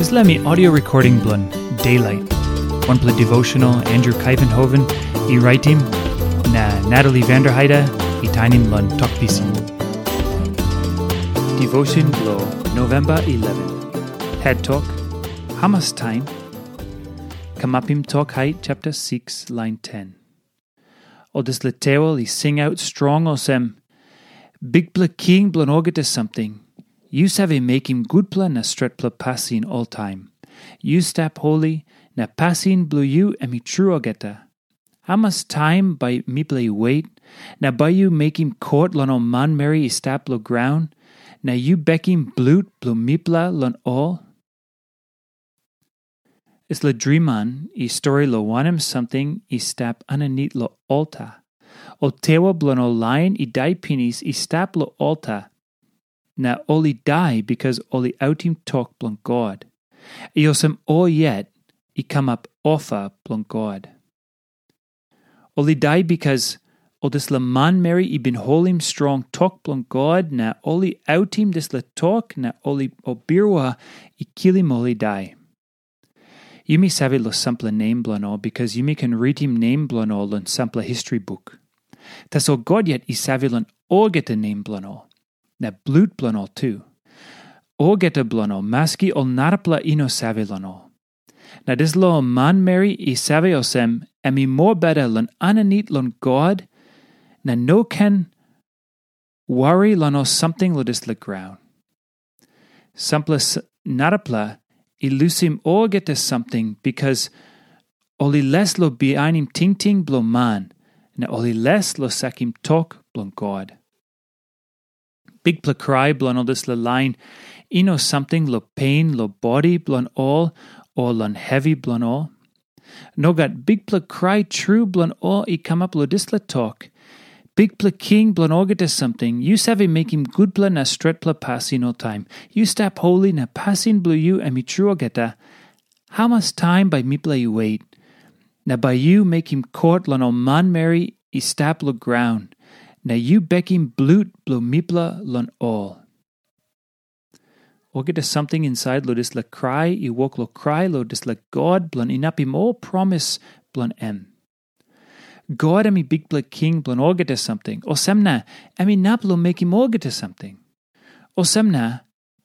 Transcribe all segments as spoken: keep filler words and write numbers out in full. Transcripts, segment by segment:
Dispela mi audio recording bilong Daylight. Wanpela devotional Andrew Kaivenhoven i raitim, na Natalie Vanderheide i tainim long tok pisin. Devotion bilong November eleven. Head tok, Hamas taim? Kamapim Tok Hait chapter six, line ten. Ol dispela tewel i singaut strong olsem, Bikpela King bilong olgeta samting, yu save mekim gutpela na stretpela pasin oltaim. Yu stap holi, na pasin bilong yu em i tru olgeta. Hamas taim bai mipela i wet, na bai yu mekim kot long ol manmeri i stap long graun, na yu bekim blut bilong mipela long ol? Dispela driman i stori long wanem samting i stap aninit long alta. Ol tewa bilong ol lain i dai pinis i stap long alta, na ol i dai bikas ol i autim tok bilong God. I olsem ol yet i kamap ofa bilong God. Ol i dai bikas ol dispela manmeri i bin holim strong tok bilong God, na ol i autim dispela tok, na ol i ol birua i kilim ol i dai. Yumi save long sampela nem bilong ol, bikas yumi ken ritim nem bilong ol long sampela histori buk. Tasol God yet i save long olgeta nem bilong ol, na blut bilong ol tu. Olgeta bilong ol, maski ol narapela i no save long ol. Na dispela ol manmeri i save olsem, em i mobeta long aninit long God, na no ken wari long ol samting long dispela graun. Sampela s- narapela i lusim olgeta samting, bikas ol i les long bihainim tingting bilong man, na ol i les long sakim tok bilong God. Bikpela krai bilong ol dispela lain i no samting long pen long bodi bilong ol, o long hevi bilong ol. Nogat, bikpela krai tru bilong ol i kamap long dispela tok, Bikpela King bilong olgeta samting, yu save mekim gutpela na stretpela pasin oltaim. Yu stap holi na pasin bilong yu em i tru olgeta. Hamas taim bai mipela i wet, na bai yu mekim kot long ol manmeri i stap long graun, na yu bekim blut bilong mipela long ol? Olgeta samting insait long dispela krai i wok long krai long dispela God bilong inapim ol promis bilong em. God em i Bikpela King bilong olgeta samting, olsem na em inap long mekim olgeta samting. Olsem na,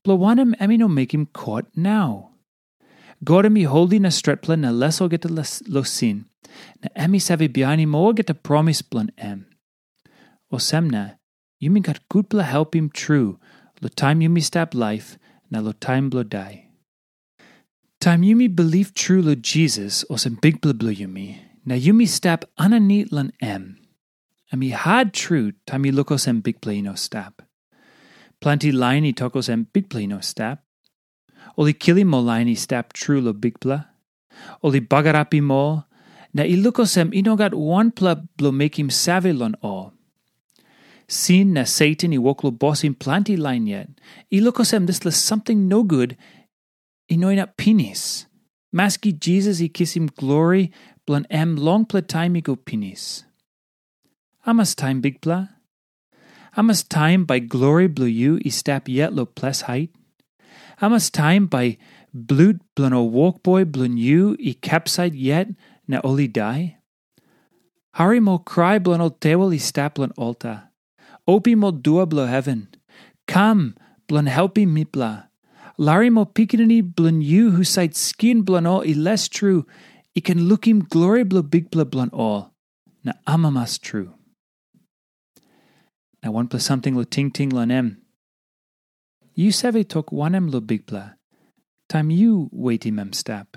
bilong wanem em i no mekim kot nau? God em i holi na stretpela na les olgeta las- long sin, na em i save bihainim olgeta promis bilong em. Olsem na, yumi gat gutpela helpim tru long taim yumi stap laip na long taim bilong dai. Taim yumi bilip tru long Jisas olsem Bikpela bilong yumi, na yumi stap aninit long em, em i hat tru taim yu lukim olsem Bikpela i no stap. Planti lain i tok olsem Bikpela i no stap. Ol i kilim ol lain i stap tru long Bikpela. Ol i bagarapim ol, na i lukim olsem i no gat wanpela bilong mekim save long ol. Sin na Satan i wok long bosim planti lain yet. I lukim olsem dispela samting nogut i no inap pinis, maski Jisas i kisim glori bilong em longpela taim i go pinis. Hamas taim Bikpela? Hamas taim bai glori bilong yu i stap yet long ples hait? Hamas taim bai blut bilong ol wokboi bilong yu i kapsait yet na ol i dai? Harim ol krai bilong ol tewel i stap long alta. Opim ol dua bilong heven. Kam bilong helpim mipela. Larim ol pikinini bilong yu husat skin bilong ol i les tru i ken lukim glori bilong Bikpela bilong ol, na amamas tru. Na wanpela samting long tingting long em. Yu save tok wanem long Bikpela, taim yu wetim em stap?